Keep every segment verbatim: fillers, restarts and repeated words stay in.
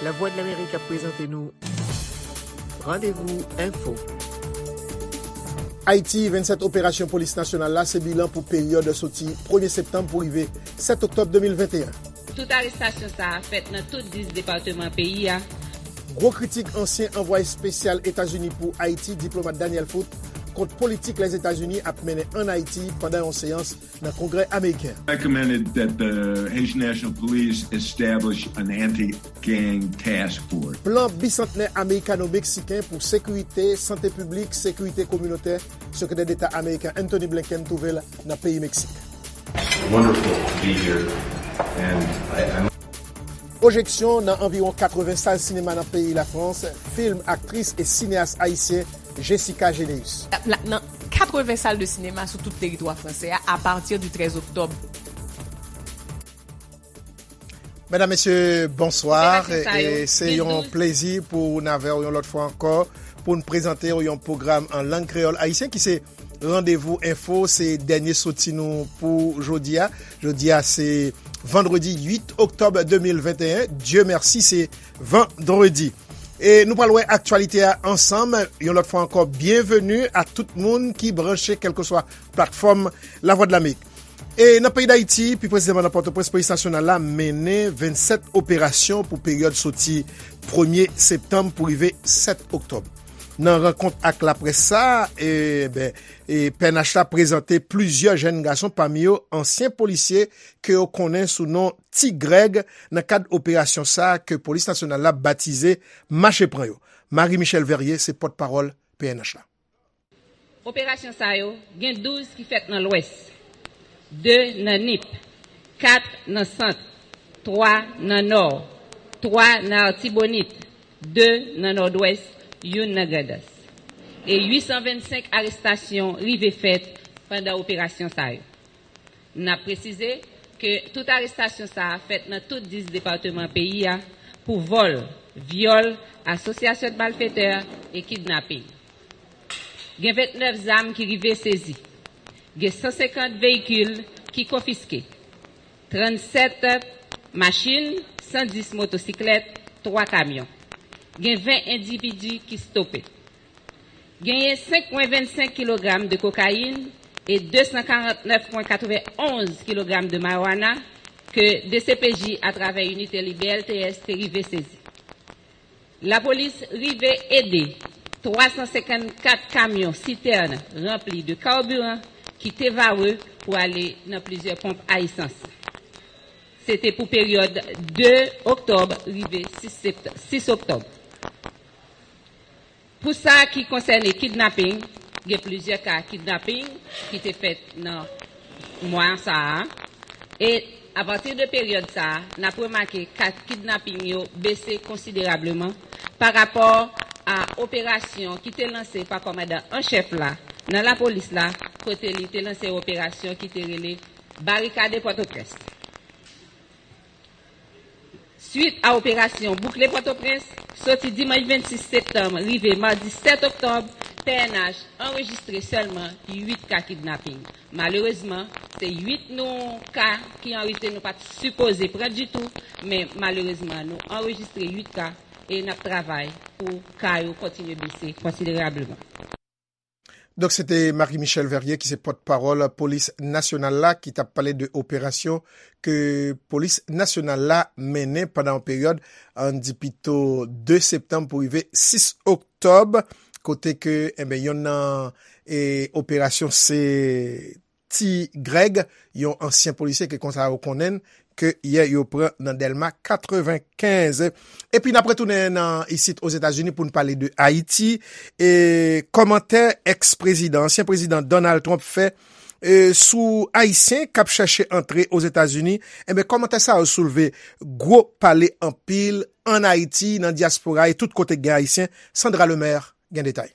Lavwadlamerik ap prezante nou Randevou Enfo. Ayiti, vennsèt operasyon polis nasyonal la se bilan pou peryòd soti premye septanm pou rive sèt oktòb de mil venteyen. Tout arestasyon sa a fèt nan tout dis depatman peyi a. Gwo kritik ansyen anvwaye espesyal Etazini pou Ayiti, diplomat Daniel Foote, kont politik Lèzetazini ap mennen ann Ayiti pandan yon seyans nan Kongrè ameriken. Recommended that the Haitian National Police establish an anti-gang task force. Plan bisantnè amerikano-meksiken pou sekirite, sante piblik, sekirite kominotè, Sekretè Deta ameriken Antony Blinken twouve l nan peyi Meksik. Wonderful to be here, and I, I'm Pwojeksyon nan anviwon katreven sal sinema nan peyi Lafrans, fim aktris e sineyas ayisyen Jessica Généus. La, nan katreven sal de sinema sou tout teritwa fransè a, apati di trèz oktòb. Medam, mesye, bonswa. Operasyon sa yo, e se gen yon douz plezi pou n avè w yon lòt fwa ankò, pou n prezante w yon pwogram an lang kreyòl ayisyen ki se Randevou Enfo, se dènye soti nou pou jodi a. Jodi a, se vandredi uit oktòb de mil venteyen. Dye mèsi, se vandredi. E nou pral wè aktyalite a ansanm. Yon lòt fwa ankò, byenveni a tout moun ki branche, kèlkeswa platfòm Lavwadlamerik. E nan peyi Dayiti, pi presizèman nan Pòtoprens, polis nasyonal la mennen vennsèt operasyon pou peryòd soti premye septanm pou rive sèt oktòb. Nan rankont ak laprès sa, e, ben, e, P N H la prezante plizyè jèn gason, pami yo ansyen polisye ke yo konnen sou non Ti Grèg, nan kad operasyon sa a ke polis nasyonal la batize Mache Pran Yo. Marie Michelle Verrier se pòtpawòl P N H la. Operasyon sa yo, gen douz ki fèt nan Lwès, de nan Nip, kat nan Sant, twa nan Nò, twa nan Artibonit, de nan Nòdwès, youn nan Grandans. E uit san vennsenk arestasyon rive fèt pandan operasyon sa yo. N ap presize ke tout arestasyon sa a fèt nan tout dis depatman peyi a pou vòl, vyòl, asosyasyon de malfetè e kidnaping. Gen vennèf zam ki rive sezi. Gen san senkant veyikil ki konfiske. Trannsèt machin, san dis motosiklèt, twa kamyon. Gen ven endividi ki stope. Genyen senk pwen vennsenk kilogram de kokayin e de san karantnèf pwen katrevenonz kilogram de marijuana ke D C P J atravè inite li B L T S te rive sezi. Lapolis rive ede twa san senkannkat kamyon sitèn ranpli de kabiran ki te vare pou ale nan plizyè ponp a esans. Se te pou peryòd de oktòb rive sis sept, sis oktòb. Pou sa ki konsène kidnaping, gen plizyè ka kidnaping ki te fèt nan mwa sa a. E apati de peryòd sa a, n ap remake ka kidnaping yo bese konsiderableman pa rapò a operasyon ki te lanse pa kòmandan an chèf la nan lapolis la, kote li te lanse operasyon ki te rele Barikade Pòtoprens. Swit a operasyon Boukle Pòtoprens, soti dimanch vennsis septanm rive madi sèt oktòb, P N H anrejistre sèlman uit ka kidnaping. Malerezman, se uit nou ka ki an rete nou pa t sipoze pran ditou, men malerezman, nou anrejistre uit ka e n ap travay pou ka yo kontinye bese konsiderableman. Donk, se te Marie Michelle Verrier ki se pòtpawòl polis nasyonal la ki t ap pale de operasyon ke polis nasyonal la mennen pandan yon peryòd, ann di pito de septanm pou rive sis oktòb, kote ke, enben, yonn nan, e, operasyon se Ti Grèg, yon ansyen polisye ke konsa yo konnen l, ke yè yo pran nan Dèlma katrevenkenz. Epi n ap retounen nan isit Ozetazini pou n pale de Ayiti. E kòmantè èks-prezidan, ansyen prezidan Donald Trump fè, e, sou Ayisyen k ap chèche antre Ozetazini, enben, kòmantè sa yo soulve gwo pale anpil ann Ayiti, nan dyaspora e tout kote k gen Ayisyen. Sandra Lemaire gen detay.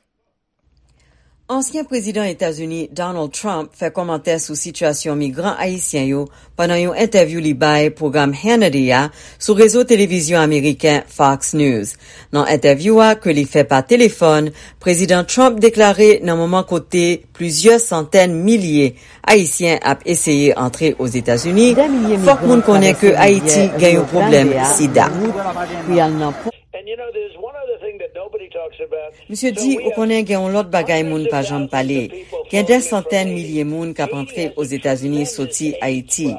Ansyen prezidan Etazini Donald Trump fè kòmantè sou sitiyasyon migran ayisyen yo pandan yon entèvyou li bay pwogram Hannity a sou rezo televizyon ameriken Fox News. Nan entèvyou a ke li fè pa telefòn, Prezidan Trump deklare nan moman kote plizyè santèn milye Ayisyen ap eseye antre Ozetazini, fòk moun konnen ke Ayiti gen yon pwoblèm sida. Misye di, ou konnen gen yon lòt bagay moun pa janm pale. Gen dè santèn milye moun k ap antre Ozetazini soti Ayiti.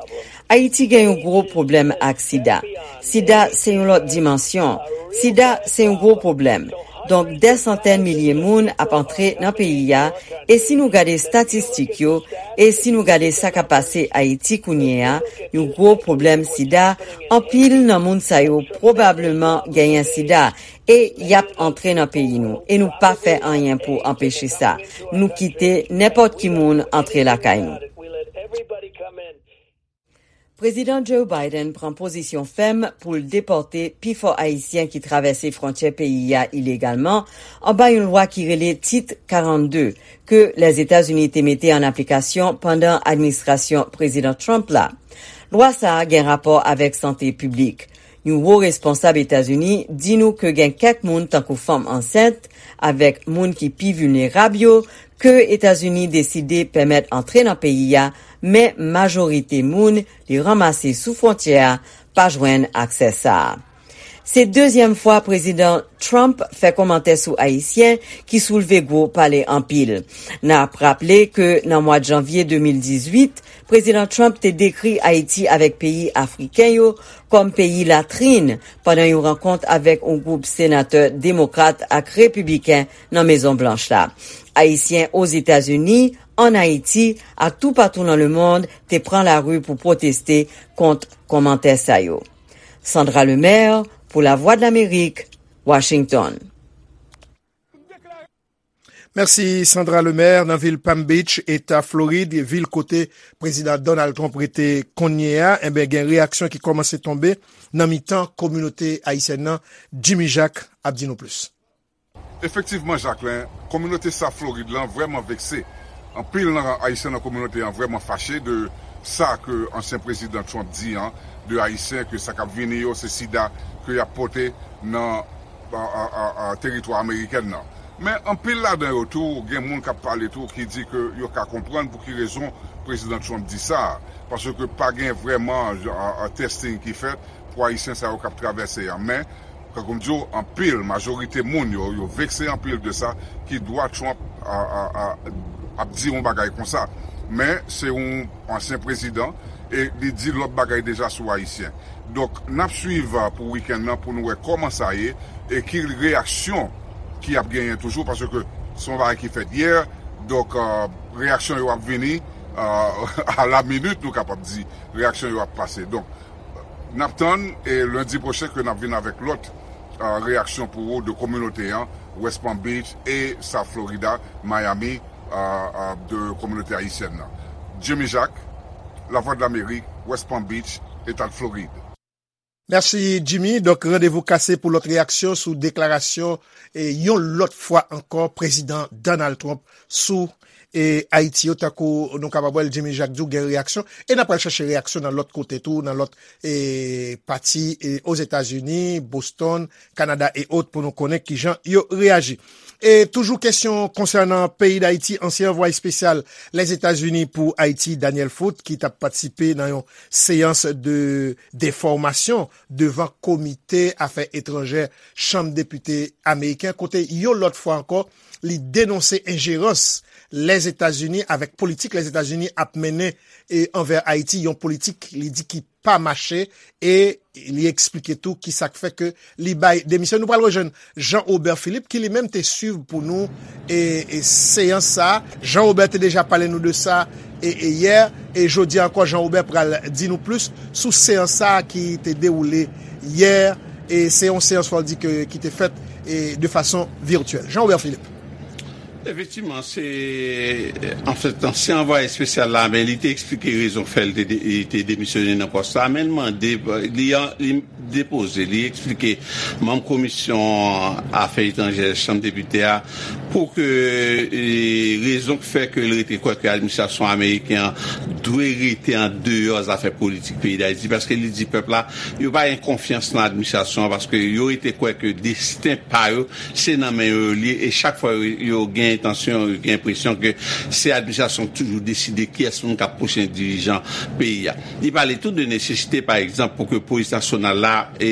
Ayiti gen yon gwo pwoblèm ak sida. Sida se yon lòt dimansyon. Sida se yon gwo pwoblèm. Donk, dè santèn milye moun ap antre nan peyi a, e si nou gade estatistik yo, e si nou gade sa k ap pase Ayiti kounye a, yon gwo pwoblèm sida, anpil nan moun sa yo pwobableman genyen sida, e y ap antre nan peyi nou, e nou pa fè anyen pou anpeche sa. Nou kite nenpòt ki moun antre lakay nou. Prezidan Joe Biden pran pozisyon fèm pou l depòte pifò Ayisyen ki travèse fwontyè peyi a ilegalman anba yon lwa ki rele Tit karannde, ke Lèzetazini te mete an aplikasyon pandan administrasyon Prezidan Trump la. Lwa sa a gen rapò avèk sante piblik. Yon wo responsab Etazini di nou ke gen kèk moun, tankou fanm ansent, avèk moun ki pi vilnerab yo, ke Etazini deside pèmèt antre nan peyi a, men majorite moun li ranmase sou fwontyè a pa jwenn aksè sa a. Se dezyèm fwa Prezidan Trump fè kòmantè sou Ayisyen ki soulve gwo pale anpil. N ap raple ke nan mwa janvye de mil dizuit, Prezidan Trump te dekri Ayiti avèk peyi afriken yo kòm peyi latrin pandan yon rankont avèk yon gwoup senatè demokrat ak repibliken nan Mezon Blanch la. Ayisyen Ozetazini, ann Ayiti ak toupatou nan lemonn te pran lari pou pwoteste kont kòmantè sa yo. Sandra Lemaire pou Lavwadlamerik, Washington. Mèsi Sandra Lemaire. Nan vil Palm Beach, Eta Florid, vil kote Prezidan Donald Trump rete kounye a, enben gen reyaksyon ki kòmanse tonbe nan mitan kominote ayisyèn nan. Jimmy Jacques ap di nou plis. Efektivman, Jacquelin, kominote South Florid lan vrèman vekse. Anpil nan Ayisyen nan kominote an vrèman fache de sa ke ansyen prezidan Trump di an de Ayisyen, ke sa k ap vini yo se sida ke y ap pote nan teritwa amerikèn nan. Men anpil ladan yo tou, gen moun k ap pale tou ki di ke yo ka konprann pou ki rezon prezidan Trump di sa, paske pa gen vrèman testing ki fèt pou Ayisyen sa yo k ap travèse an. Men, tankou m di w, anpil, majorite moun yo, yo vekse anpil de sa ki dwa Trump ap di yon bagay konsa. Men, se yon ansyen prezidan e li di lòt bagay deja sou Ayisyen. Donk, n ap swiv pou wikenn nan pou nou wè kòman sa ye e ki reyaksyon ki ap genyen toujou, paske se yon bagay ki fèt yè, donk, reyaksyon yo ap vini a la minit, nou kapab di, reyaksyon yo ap pase. Donk, n ap tann e lendi pwochen ke n ap vin avèk lòt reyaksyon pou ou de kominote an, West Palm Beach e South Florida, Miami, de kominote ayisyèn nan. Jimmy Jacques, Lavwadlamerik, West Palm Beach, Eta Florid. Mèsi Jimmy. Donk, randevou kase pou lòt reyaksyon sou deklarasyon e yon lòt fwa ankò Prezidan Donald Trump sou e Ayiti yo, tankou nou kapab wè l, Jimmy Jacques di w gen reyaksyon, e n ap pral chache reyaksyon nan lòt kote tou, nan lòt e pati e Ozetazini, Boston, Kanada e ot pou nou konnen kijan yo reyaji. E toujou kesyon konsènan peyi Dayiti, ansyen anvwaye espesyal Lèzetazini pou Ayiti, Daniel Foote, ki t ap patisipe nan yon seyans de defòmasyon devan Komite Afè Etranjè Chanm Depite ameriken, kote yon lòt fwa ankò, li denonse enjerans Lèzetazini avèk politik Lèzetazini ap mennen e anvè Ayiti, yon politik li di ki pa mache, e li eksplike tou ki sa k fè ke li bay demisyon. Nou pral rejwenn Jean Robert Philippe ki li menm te swiv pou nou e, e seyans sa. Jean Robert te deja pale nou de sa e, e yè, e jodi ankò Jean Robert pral di nou plis sou seyans sa ki te dewoule yè, e se yon seyans fò di ke ki te fèt e de fason virtyèl. Jean Robert Philippe. Efektivman, se, anfèt, ansyen anvwaye espesyal la, men li te eksplike rezon k fè l te, de- li te demisyone nan pòs la, men l mande, li, li depoze, li eksplike manm komisyon afè etranjè Chanm Depite a pou ke e, rezon k fè ke l rete kwè ke administrasyon ameriken an dwe rete an deyò zafè politik peyi Dayiti, paske li di pèp la, yo pa gen konfyans nan administrasyon an, paske yo rete kwè ke desten pa yo se nan men yo li ye, e chak fwa yo, yo gen entansyon, yo gen enpresyon ke se administrasyon k toujou deside kiyès moun k ap pwochen dirijan peyi a. Li pale tou de nesesite, pa egzanp, pou ke polis nasyonal la e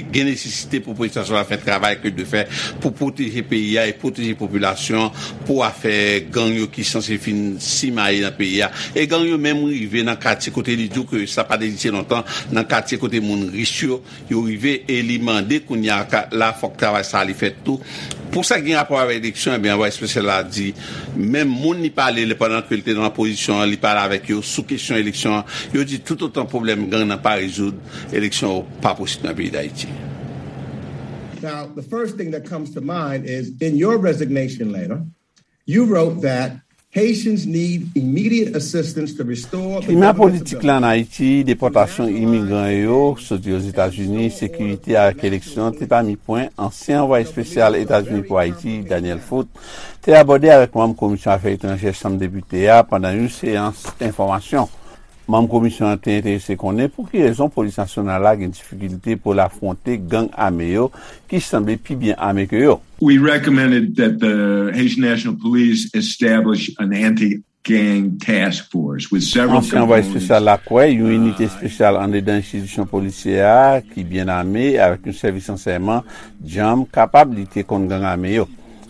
gen nesesite pou polis nasyonal la fè travay ke l dwe fè pou pwoteje peyi a e pwoteje popilasyon an pou afè gang yo ki sanse fin simaye nan peyi a. E gang yo menm rive nan katye kote li di w ke sa pa t egziste lontan, nan katye kote moun rich yo, yo rive e li mande kounye a ka- la fòk travay sa li fèt tou. Pou sa ki gen rapò avèk eleksyon, ebyen, anvwaye espesyal la di, menm moun li pale lè pandan ke l te nan opozisyon an, li pale avèk yo sou kesyon eleksyon an, yo di toutotan pwoblèm gang nan pa rezoud, eleksyon yo pa posib nan peyi Dayiti. Now, the first thing that comes to mind is in your resignation letter, you wrote that Haitians need immediate assistance to restore the Klima government's politik la ann Ayiti, depòtasyon imigran yo soti Ozetazini, sekirite avèk eleksyon te pami pwen ansyen anvwaye espesyal Etazini pou Ayiti, Daniel Foot, te abòde avèk manm Komisyon Afè Etranjè Chanm Depite a pandan yon seyans enfòmasyon. Manm komisyon an te enterese konnen pou ki rezon polis nasyonal la gen difikilte pou l afwonte gang ame yo ki sanble pi byen ame ke yo. We recommended that the Haitian National Police establish an anti-gang task force with several Ansyen anvwaye espesyal la kwè yon inite espesyal anndedan enstitisyon polisyè a ki byen ame avèk yon sèvis ransèyman djanm kapab lite kont gang ame yo.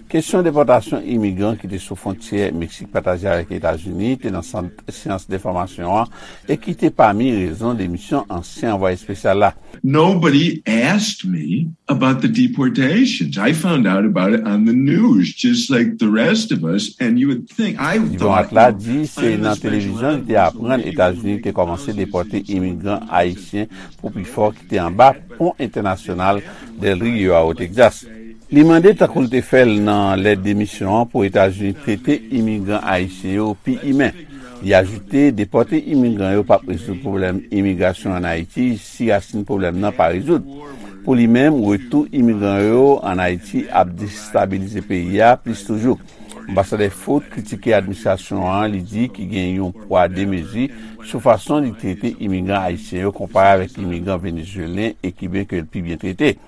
Kesyon depòtasyon imigran ki te sou fwontyè Meksik pataje avèk Etazini te nan sant seyans enfòmasyon an e ki te pami rezon demisyon ansyen anvwaye espesyal la. Nobody asked me about the deportations. I found out about it on the news, just like the rest of us, and you would think I Diplomat la di se nan televizyon li te aprann Etazini te kòmanse depòte imigran ayisyen pou pifò ki te anba pon entènasyonal Del Rio a o Texas. Li mande, tankou l te fè l nan lèt demisyon an, pou Etazini trete imigran ayisyen yo pi imen. Li ajoute, depòte imigran yo p ap rezoud pwoblèm imigrasyon ann Ayiti si rasin pwoblèm nan pa rezoud. Pou li menm, retou imigran yo ann Ayiti ap destabilize peyi a plis toujou. Anbasadè Foot kritike administrasyon an, li di ki gen yon pwa de mezi sou fason li trete imigran ayisyen yo konpare avèk imigran venezuelen e kiben ke l pi byen trete.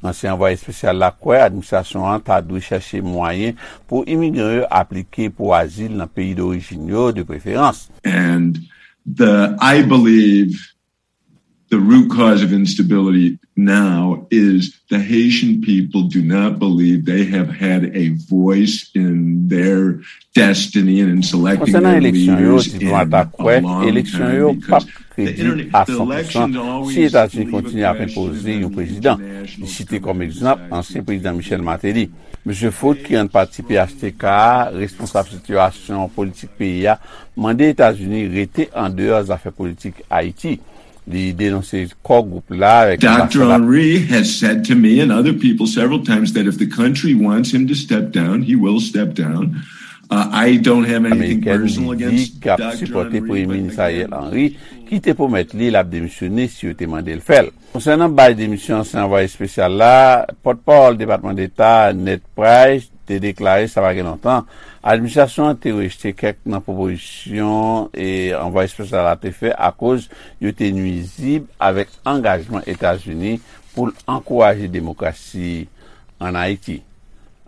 Ansyen anvwaye espesyal la kwè administrasyon an ta dwe chèche mwayen pou imigran yo aplike pou azil nan peyi dorijin yo de preferans. And the I believe the root cause of instability now is the Haitian people do not believe they have had a voice in their destiny and in selecting their leaders in a long time because the internet. Konsènan eleksyon yo, diplomat la kwè eleksyon yo p ap kredib a san pousan si Etazini kontinye ap enpoze yon prezidan. Li site kòm egzanp ansyen prezidan Michel Martelly. Mesye Foot, ki rann pati P H T K a responsab sitiyasyon politik peyi a, mande Etazini rete andeyò zafè politik Ayiti. Li denonse kò gwoup la avèk Doctor anbasad. Henry has said to me and other people several times that if the country wants him to step down, he will step down. Uh, I don't have anything Amerikèn personal li di against k ap Doctor sipòte Premye Henry, Minis but Ariel again, Henry, ki te pwomèt li l ap demisyone si yo te mande l fè l. Konsènan bay demisyon ansyen anvwaye espesyal la, pòtpawòl Depatman Deta, Ned Price, te deklare sa pa gen lontan, administrasyon an te rejte kèk nan pwopozisyon e anvwaye espesyal la te fè akoz yo te nwizib avèk angajman Etazini pou l ankouraje demokrasi ann Ayiti.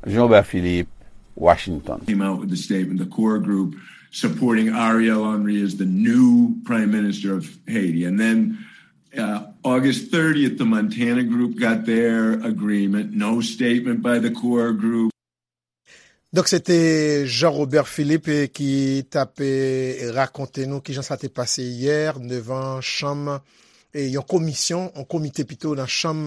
Jean Robert Philippe, Washington. Came out with the statement, the core group supporting Ariel Henry as the new prime minister of Haiti. And then uh, August thirtieth, the Montana group got their agreement. No statement by the core group. Donk se te Jean Robert Philippe ki t ap rakonte nou kijan sa te pase yè devan chanm yon komisyon, yon komite pito nan chanm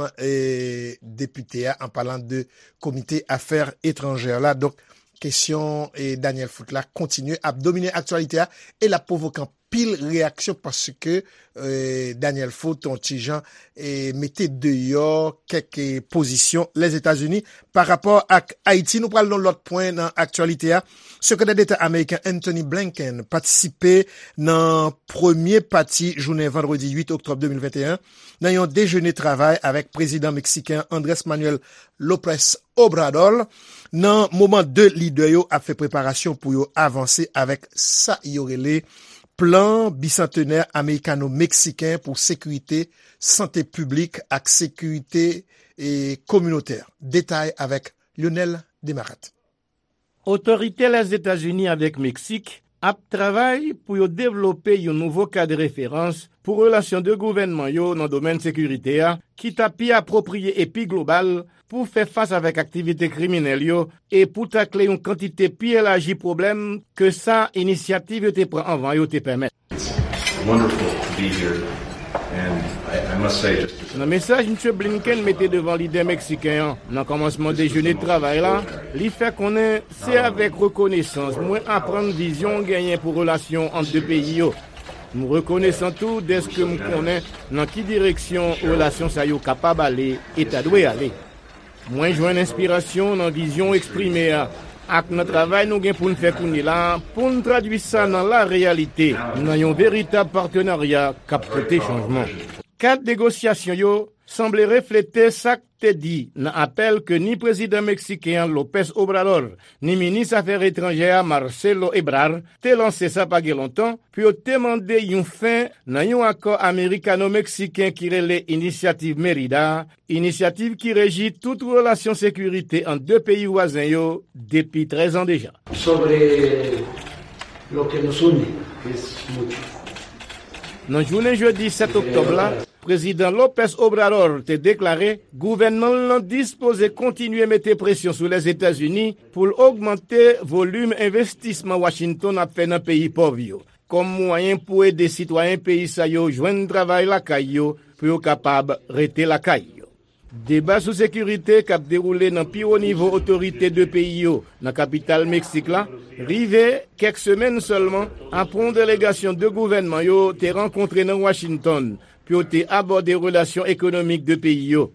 depite a, an palan de komite afè etranjè la. Donk kesyon Daniel Foot la kontinye ap domine aktyalite a e l ap pwovoke anpil reyaksyon paske eh, Daniel Foot, yon ti jan, eh, mete deyò kèk eh, pozisyon Lèzetazini pa rapò ak Ayiti. Nou pral nan lòt pwen nan aktyalite a. Sekretè Deta ameriken Anthony Blinken patisipe nan premye pati jounen vandredi uit oktòb de mil venteyen nan yon dejene travay avèk prezidan meksiken Andrés Manuel López Obrador, nan moman de lidè yo ap fè preparasyon pou yo avanse avèk sa yo rele plan bisantenè amerikano-meksiken pou sekirite, sante piblik ak sekirite e kominotè. Detay avèk Lionel Demarat. Otorite Lèzetazini avèk Meksik ap travay pou yo devlope yon nouvo kad referans pou relasyon de gouvènman yo nan domèn sekirite a, ki ta pi apwopriye e pi global pou fè fas avèk aktivite kriminèl yo e pou takle yon kantite pi elaji pwoblèm ke sa inisyativ yo te pran anvan yo te pèmèt. Wonderful to be here. And I, I must say, just as Nan mesaj Misye Blinken mete devan lidè meksiken an nan kòmansman dejene travay la, li fè konnen se avèk rekonesans mwen aprann vizyon w genyen pou relasyon ant de peyi yo. M rekonesan tou dèske m konnen nan ki direksyon relasyon sa yo kapab ale e ta dwe ale. Mwen jwenn enspirasyon nan vizyon w eksprime a ak nan travay nou gen pou n fè kounye la a pou n tradui sa nan lareyalite, nan yon veritab patenarya k ap pote chanjman. Kad negosyasyon yo sanble reflete sa k te di nan apèl ke ni prezidan meksiken an López Obrador ni minis afè etranjè a Marcelo Ebrard te lanse sa pa gen lontan pou yo te mande yon fen nan yon akò amerikano-meksiken ki rele Inisyativ Merida, inisyativ ki reji tout relasyon sekirite ant de peyi vwazen yo depi trèz an deja. Sobre lo que nos une, que es mucho. Nan jounen jedi sèt oktòb la, Prezidan López Obrador te deklare gouvènman l lan dispoze kontinye mete presyon sou Lèzetazini pou l ogmante volim envestisman Washington ap fè nan peyi pòv yo, kòm mwayen pou ede sitwayen peyi sa yo jwenn travay lakay yo pou yo kapab rete lakay yo. Deba sou sekirite k ap dewoule nan pi wo nivo otorite de peyi yo nan kapital Meksik la rive kèk semèn sèlman apre yon delegasyon de gouvènman yo te rankontre nan Washington pou yo te abòde relasyon ekonomik de peyi yo.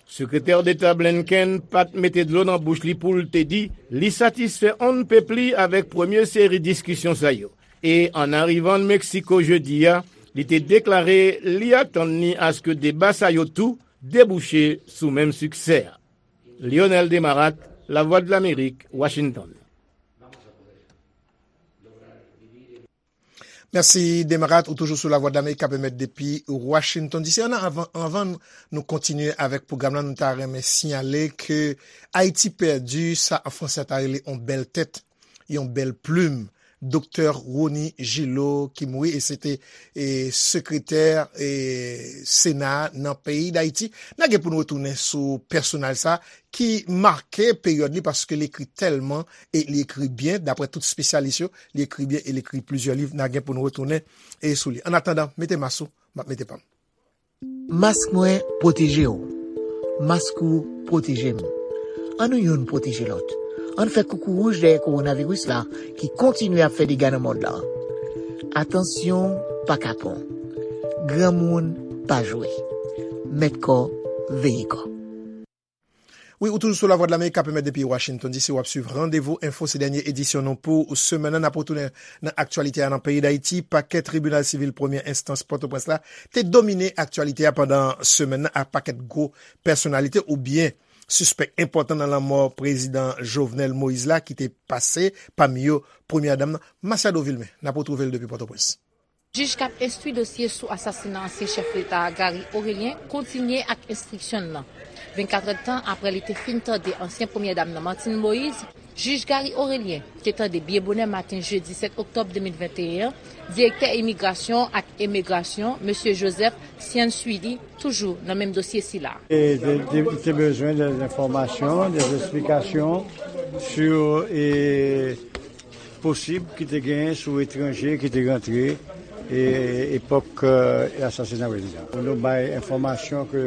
Sekretè Deta Blinken pa t mete dlo nan bouch li pou l te di li satisfè on n pèp li avèk premye seri diskisyon sa yo. E an arivan Meksiko jedi a, li te deklare li atann li aske deba sa yo tou debouche sou menm siksè a. Lionel Demarat, Lavwadlamerik, Washington. Mèsi Demarat, ou toujou sou Lavwadlamerik k ap emèt depi Washington D C. Ann, anvan, anvan nou kontinye avèk pwogram lan, nou ta renmen siyale ke Ayiti pèdi sa an fransè ta rele on bèl tèt, yon bèl plim. Doktè Rony Gillot ki mouri e se te e, sekretè e, Sena a nan peyi Dayiti. N a gen pou n retounen sou pèsonaj sa ki make peryòd li paske li ekri tèlman e li ekri byen, daprè tout espesyalis yo, li ekri byen e li ekri plizyè liv. N a gen pou n retounen e sou li. Annatandan, mete mas ou, m ap mete pa m. Mask mwen pwoteje w. Mask ou pwoteje m. Ann nou youn pwoteje lòt. Ann fè koukou wouj dèyè kowonaviris la ki kontinye ap fè dega nan mond lan. Atansyon pa kapon. Granmoun pa jwe. Mèt kò, veye kò. Wi, ou toujou sou Lavwadlamerik k ap emèt depi Washington D C, w ap swiv Randevou Enfo, se dènye edisyon nou pou semèn nan. N ap retounen nan aktyalite a nan peyi Dayiti. Pakè tribinal sivil premyè enstans Pòtoprens la te domine aktyalite a pandan semèn nan ak pakèt gwo pèsonalite oubyen sispèk enpòtan nan lanmò prezidan Jovenel Moïse la ki te pase, pami yo premyè dam nan, Masiado Vilmé. N ap retwouve l depi Pòtoprens. Jij k ap enstwi dosye sou asasina ansyen chèf leta a, Gary Orélien, kontinye ak enstriksyon n nan. Vennkat èdtan apre li te fin tande ansyen premyè dam nan, Martine Moïse, jij Gary Orélien te tande byen bonè maten jedi sèt oktòb de mil venteyen an direktè imigrasyon ak emigrasyon, mesye Joseph Ciansuili, toujou nan menm dosye sila. E te, te, te bezwen de enfòmasyon, de esplikasyon sou e, posib ki te genyen sou etranje ki te rantre e, epòk e, asasina prezidan. Nou bay enfòmasyon ke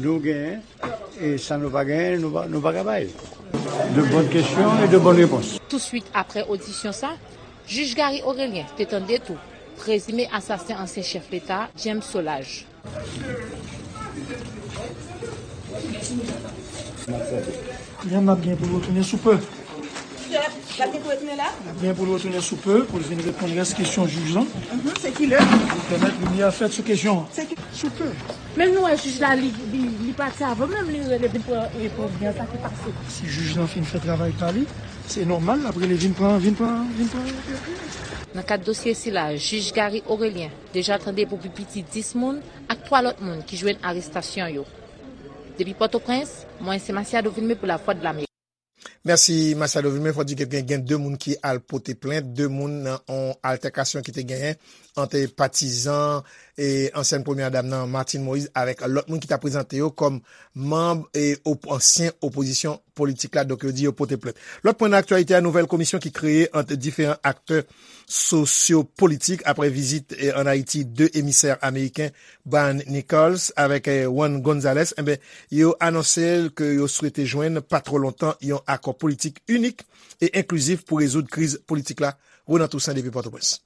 nou genyen e sa nou pa genyen, nou pa, nou pa ka bay. De bonnes questions et de bonnes réponses. Touswit apre odisyon sa, jij Gary Orélien te tande tou Prezime asasen ansyen chèf Leta, James Solages. Yann ap gen pou l retounen sou pe. L ap gen pou retounen la? L ap gen pou l retounen sou pe pou l vin reponn rès kesyon jij lan. Mhm, se ki lè? Pou pèmèt limyè fèt sou kesyon an. Se ki sou pe. Men nou wè jij la, li, li, li pati avan menm li rele vin pran, e, pou byen sa ki pase. Si jij lan fin fè travay pa li, se nòmal l ap rele vin pran, vin pran, vin pran. Nan kad dosye sila, jij Gary Orélien deja tande pou pi piti dis moun ak twa lòt moun ki jwenn arestasyon yo. Depi Pòtoprens, mwen se Masiado Vilmé pou Lavwadlamerik. Mèsi, Masiado Vilmé. Fò di ke gen, gen de moun ki al pote plent, de moun nan yon altèkasyon ki te genyen ant patizan e ansyen premye dam nan, Martine Moïse, avèk lòt moun ki ta prezante yo kòm manm e op-, ansyen opozisyon politik la. Donk, yo di yo pote plent. Lòt pwen nan aktyalite a, nouvèl komisyon ki kreye ant diferan aktè sosyopolitik apre vizit, eh, ann Ayiti de emisè ameriken, Brian Nichols avèk, eh, Juan Gonzalez, enben, yo anonse ke yo swete jwenn pa twò lontan yon akò politik inik e enklizif pou rezoud kriz politik la. Ronan Toussaint depi Pòtoprens.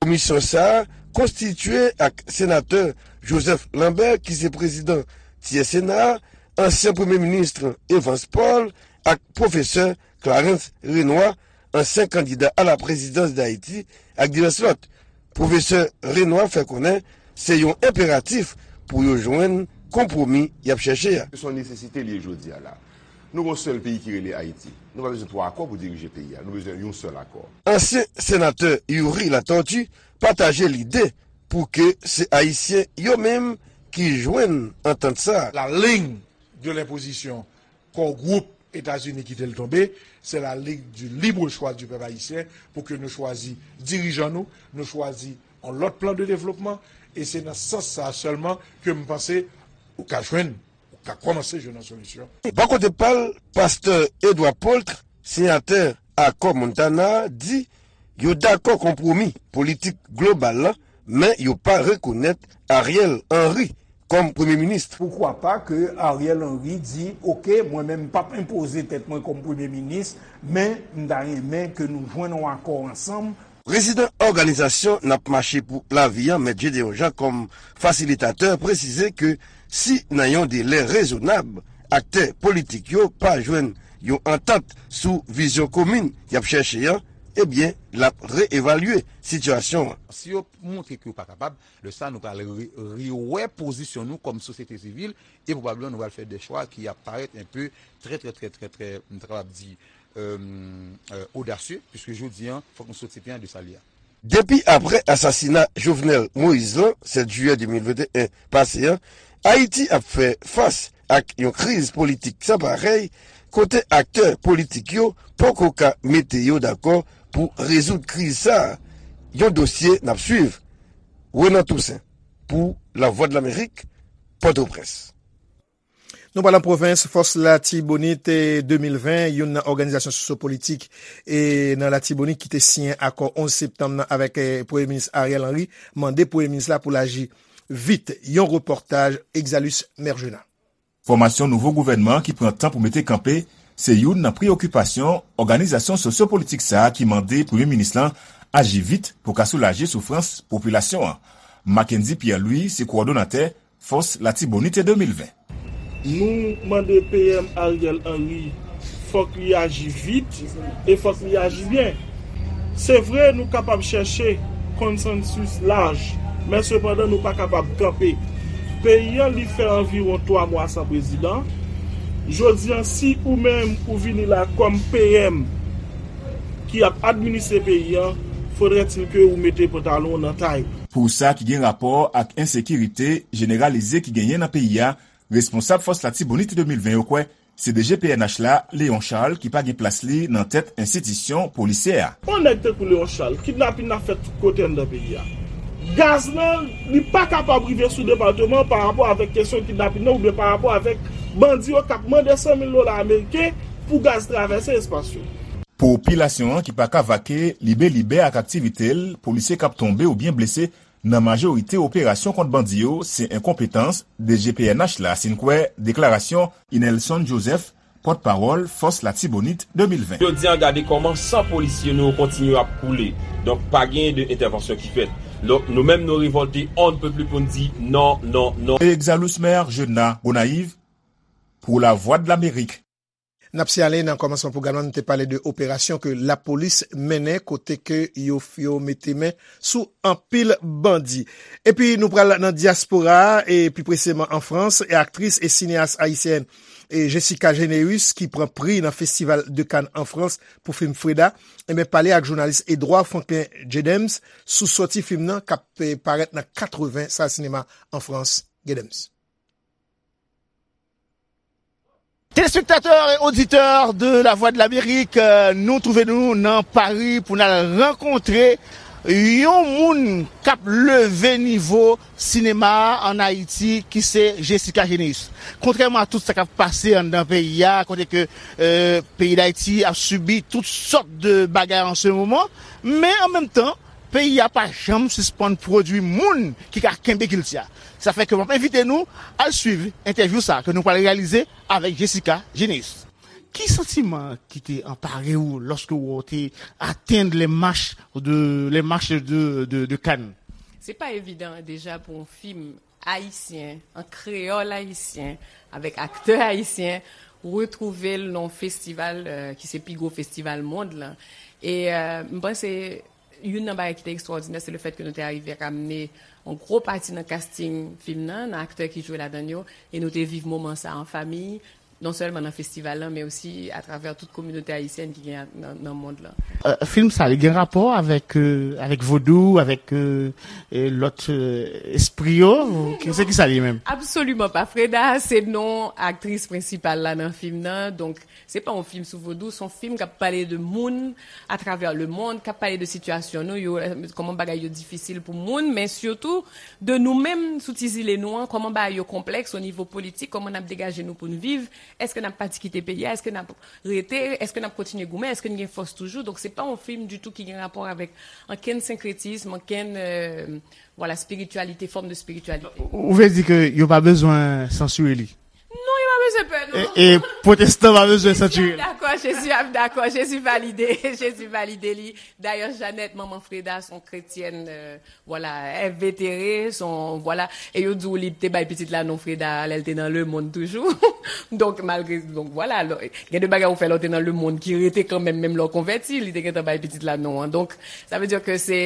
Komisyon sa a konstitye ak senatè Joseph Lambert, ki se prezidan Tyè Sena a, ansyen premye minis Evans Paul ak pwofesè Clarence Renois, ansyen kandida a la prezidans Dayiti, ak divès lòt. Pwofesè Renois fè konnen se yon enperatif pou yo jwenn konpwomi y ap chèche a. Se yon nesesite li ye jodi a la. Nou gen yon sèl peyi ki rele Ayiti. Nou pa bezwen twa akò pou dirije peyi a. Nou bezwen yon sèl akò. Ansyen senatè Youri Latortue pataje lide pou ke se Ayisyen yo menm ki jwenn antant sa a. La ligne de l'imposition Core Group Etazini kite l tonbe, c'est la ligne du libre choix du peuple haïtien pou ke nou chwazi dirijan nou, nou chwazi yon lòt plan de devlopman, e se nan sans sa a sèlman ke m panse ou ka jwenn, ou ka kòmanse jwenn yon solisyon. Bò kote pa l, pastè Edouard Paultre, siyatè akò Montana a, di yo dakò konpwomi politik global la, men yo pa rekonèt Ariel Henry kòm premye minis. Poukwa pa ke Ariel Henry di, oke, mwen menm m p ap enpoze tèt mwen kòm premye minis, men m ta renmen ke nou jwenn yon akò ansanm. Prezidan òganizasyon N ap mache pou lavi an, Mèt Gédéon Jean, kòm fasilitatè, presize ke si nan yon delè rezonab, aktè politik yo pa jwenn yon antant sou vizyon komin y ap chèche an, ebyen, l ap reevalye sitiyasyon an. Si yo montre ke yo pa kapab, lè sa a nou pral re-, rewè pozisyon nou kòm sosyete sivil, e pwobableman nou pral fè de chwa ki ap parèt enpe trè, trè, trè, trè, trè, m ta kapab di, euh, euh, odasye, piske jodi a, fòk nou soti pye an de sa l ye a. Depi apre asasina Jovenel Moïse lan, sèt jiyè de mil venteyen pase an, Ayiti ap fè fas ak yon kriz politik san parèy, kote aktè politik yo poko ka mete yo dakò pou rezoud kriz sa a. Yon dosye n ap swiv. Renan Toussaint, pou Lavwadlamerik, Pòtoprens. Nou pral nan pwovens, Fòs Latibonit, eh, de mil ven, youn nan òganizasyon sosyopolitik, eh, nan Latibonit ki te siyen akò onz septanm nan avèk, eh, Premye Minis Ariel Henry, mande Premye Minis la pou l aji vit. Yon repòtaj Exalus Mergena. Fòmasyon nouvo gouvènman ki pran tan pou mete kanpe se youn nan preyokipasyon òganizasyon sosyopolitik sa a ki mande Premye Minis lan aji vit pou ka soulaje soufrans popilasyon an. Mackendy Pierre Louis se kowòdonatè Fòs Latibonit de mil ven. Nou mande P M Ariel Henry, fòk li aji vit e fòk li aji byen. Se vre, nou kapab chèche konsansis laj, men sepandan nou pa kapab kanpe. Peyi an, li fè anviwon twa mwa san prezidan. Jodi an, si ou menm ou vini la kòm P M ki ap administre peyi an, fodrètil ke ou mete pantalon w nan tay. Pou sa ki gen rapò ak ensekirite jeneralize ki genyen nan peyi a, responsab Fòs Latibonit de mil ven yo kwè se D G P N H la, Léon Charles, ki pa gen plas li nan tèt enstitisyon polisyè a. Yon nèg tankou Léon Charles, kidnapin ap fèt tout kote anndan peyi a. Gaz lan, li pa kapab rive sou depatman an pa rapò avèk kesyon kidnapin nan oubyen pa rapò avèk bandi yo k ap mande san mil dola ameriken pou gaz travèse espas yo. Popilasyon an ki pa ka vake libelibè ak aktivite l, polisye k ap tonbe oubyen blese nan majorite operasyon kont bandi yo, se enkonpetans D G P N H la, si n kwè deklarasyon Inelson Joseph, pòtpawòl Fòs Latibonit de mil ven. Jodi a, gade kòman san polisye nou yo kontinye ap koule. Donk, pa gen de entèvansyon ki fèt. Donk, nou menm, nou revòlte on ne peut plus pou n di non, non, non. Exalus Maire, Jeune Gonayiv, pou Lavwadlamerik. N ap siyale nan kòmansman pwogram nan, nou te pale de operasyon ke lapolis mennen kote ke yo, yo mete men sou anpil bandi. Epi nou pral nan dyaspora a, e pi preseman an Frans, e aktris e sineyas ayisyèn e Jessica Généus, ki pran pri nan Festival de Cannes an Frans pou fim Freda, enben, pale ak jounalis Edouard Franklin Jedems sou sòti fim nan k ap, eh, parèt nan katreven sal sinema an Frans. Jedems. Téléspectateurs et auditeurs de La Voix de l'Amérique, euh, nou twouve nou nan Pari pou n al rankontre yon moun k ap leve nivo sinema a ann Ayiti, ki se Jessica Généus. Kontrèman a tout sa k ap pase anndan peyi a, kote ke, euh, peyi Dayiti ap sibi tout sòt de bagay an se moman, men an menm tan, peyi a pa janm sispann pwodui moun ki ka kenbe kilti a. Sa fè ke m ap envite nou al swiv entèvyou sa a ke nou pral reyalize avèk Jessica Généus. Ki santiman ki te anpare w lòske w te atenn les marches de, les marches de, de, de Cannes? Se pa evidan deja pou yon fim ayisyen, an kreyòl ayisyen, avèk aktè ayisyen, retwouve l nan yon festival, euh, ki se pi gwo festival mond lan. E, euh, m panse youn nan bagay ki te ekstwòdinè, se le fèt ke nou te arive ramne yon gwo pati nan casting fim nan, nan aktè ki jwe ladan l yo, e nou te viv moman sa a an fanmi, non sèlman nan festival lan, men osi atravè tout kominote ayisyèn ki gen nan, nan mond lan. Euh, fim sa, li gen rapò avèk, euh, avèk vodou, avèk, euh, euh, lòt, euh, espri yo? Ou ki, se ki sa li ye menm? Absoliman pa. Freda se non aktris prensipal la nan fim nan. Donk, se pa yon fim sou vodou, se yon fim k ap pale de moun atravè le mond, k ap pale de sitiyasyon nou yo, kòman bagay yo difisil pou moun, men sitou de nou menm sou ti zile nou an, kòman bagay yo konplèks o nivo politik, kòman n ap degaje nou pou n viv, èske n ap pati kite peyi a, èske n ap rete, èske n ap kontinye goumen, èske n gen fòs toujou. Donk, se pa yon fim ditou ki gen rapò avèk ankenn senkretism, ankenn, euh, vwala, spirityalite, fòm de spirityalite. Ou vle di ke yo pa bezwen sansire li? Non, yo pa bezwen pè, non. E, e pwotestan pa bezwen sansire li? Jezi ap dakò, Jezi ap dakò, Jezi valide, Jezi valide li. Dayè, Jeannette, manman Freda, se yon kretyèn, euh, vwala, envetere, se yon, vwala. E yo di w li te bay pitit la non Freda lè l te nan lemonn toujou. Donk, malgre, donk, vwala, lò, gen de bagay ou fè lè w te nan lemonn ki rete kanmenm, menm lè w konvèti, li te gentan bay pitit la non an. Donk, sa vle di ke se,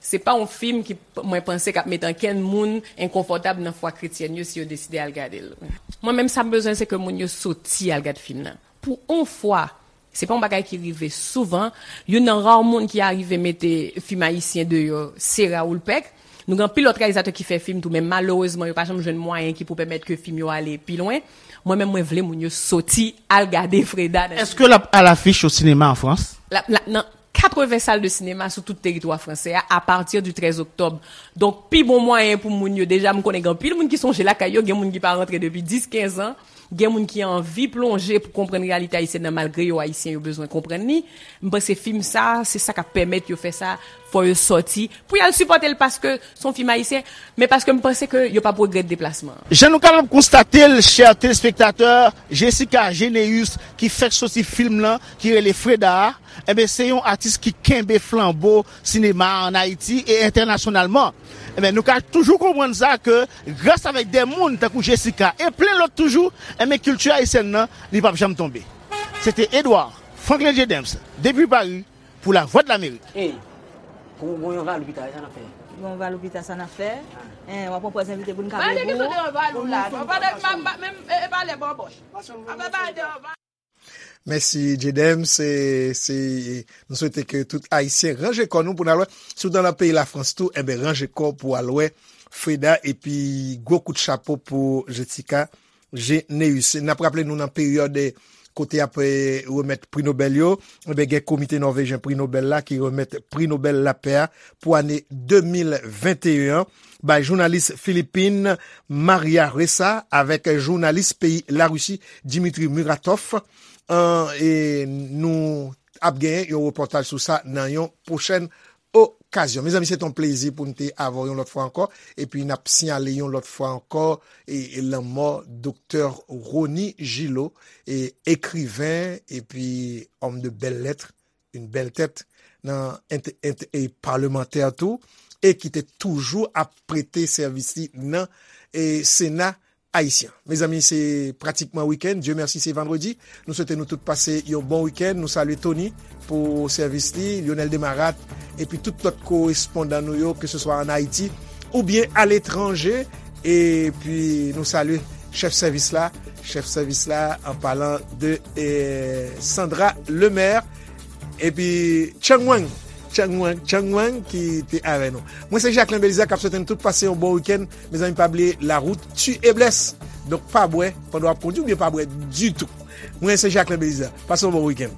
se pa yon fim ki, mwen panse, k ap mete ankenn moun enkonfòtab nan fwa kretyèn yo si yo deside al gade l. Mwen menm, sa m bezwen, se ke moun yo soti al gade fim nan. Pou yon fwa, se pa yon bagay ki rive souvan. Youn nan ra moun ki arive mete fim ayisyen deyò, se Raoul Peck. Nou gen anpil lòt reyalizatè ki fè fim tou, men malerezman, yo pa janm jwenn mwayen ki pou pèmèt ke fim yo ale pi lwen. Mwen menm, mwen vle moun yo soti al gade Freda nan... Èske l ap alafich o sinema an Frans? La, la, nan katreven sal de sinema sou tout teritwa fransè a, apati di trèz oktòb. Donk, pi bon mwayen pou moun yo, deja, m konnen gen anpil moun ki sonje lakay yo, gen moun ki pa rantre depi dis, kenz an, gen moun ki anvi plonje pou konprann reyalite ayisyèn nan, malgre yo ayisyen, yo bezwen konprann li. M panse fim sa, se sa k ap pèmèt yo fè sa, fò yo sòti, pou y al sipòte l paske se yon fim ayisyen, men paske m panse ke yo p ap regrèt deplasman an. Jan nou kapab konstate l, chè telespektatè, Jessica Généus, ki fèk soti fim lan, ki rele Freda a, enben, se yon atis ki kenbe flanbo sinema a ann Ayiti e entènasyonalman. Enben, nou ka toujou konprann sa ke gras avèk de moun tankou Jessica e plen lòt toujou, enben, kilti ayisyèn nan, li p ap janm tonbe. Se te Edouard Franklin Jedems, depi Paris, pou Lavwadlamerik. Ey, gon, gon yon valou pita, sa n ap fè? Gon valou pita, sa n ap fè? Ah. En, w ap pran pòz envite pou n ka... Pale ki sou de yon valou la, non, pale, pa, pa, menm, e, e pale bòbòch. Apa pale de yon valou. Mèsi, Jedems. Se, se, nou swete ke tout Ayisyen ranje kò nou pou n al wè. Si w nan peyi Lafrans tou, enben, ranje kò pou w al wè Freda, epi gwo kout chapo pou Jessica Généus. N ap raple nou nan peryòd, eh, kote y ap, eh, remèt pri Nobèl yo, enben, gen Komite Nòvejyen Pri Nobèl la ki remèt Pri Nobèl Lapè a pou ane de mil venteyen an bay jounalis Filipin Maria Ressa avèk jounalis peyi Larisi Dmitry Muratov. An, e nou ap genyen yon repòtaj sou sa nan yon pwochèn okazyon. Mezanmi, se t on plezi pou n te avè w yon lòt fwa ankò, epi n ap siyale yon lòt fwa ankò, e, e lanmò Doktè Rony Gillot, e, ekriven, epi homme de belles lettres, une belle tête, nan ent-, ent-, e palmantè tou, e ki te toujou ap prete sèvis li nan e, Sena ayisyen. Mezanmi, se pratikman wikenn. Dye mèsi, se vandredi. Nou swete nou tout pase yon bon wikenn. Nou salye Tony pou sèvis li, Lionel Demarat, epi tout lòt korespondan nou yo, ke se swa an Ayiti oubyen aletranje. Epi nou salye chèf sèvis la, chèf sèvis la, an palan de eh, Sandra Lemaire, epi Chang Wang, Chang Wang, Chang Wang ki te avè nou. Mwen se Jacquelin Belizaire k ap swete nou tout pase yon bon wikenn. Mezanmi, pa bliye, la route tue et blesse. Donk, pa bwè pandan w ap kondui oubyen pa bwè ditou. Mwen se Jacquelin Belizaire. Pase yon bon wikenn.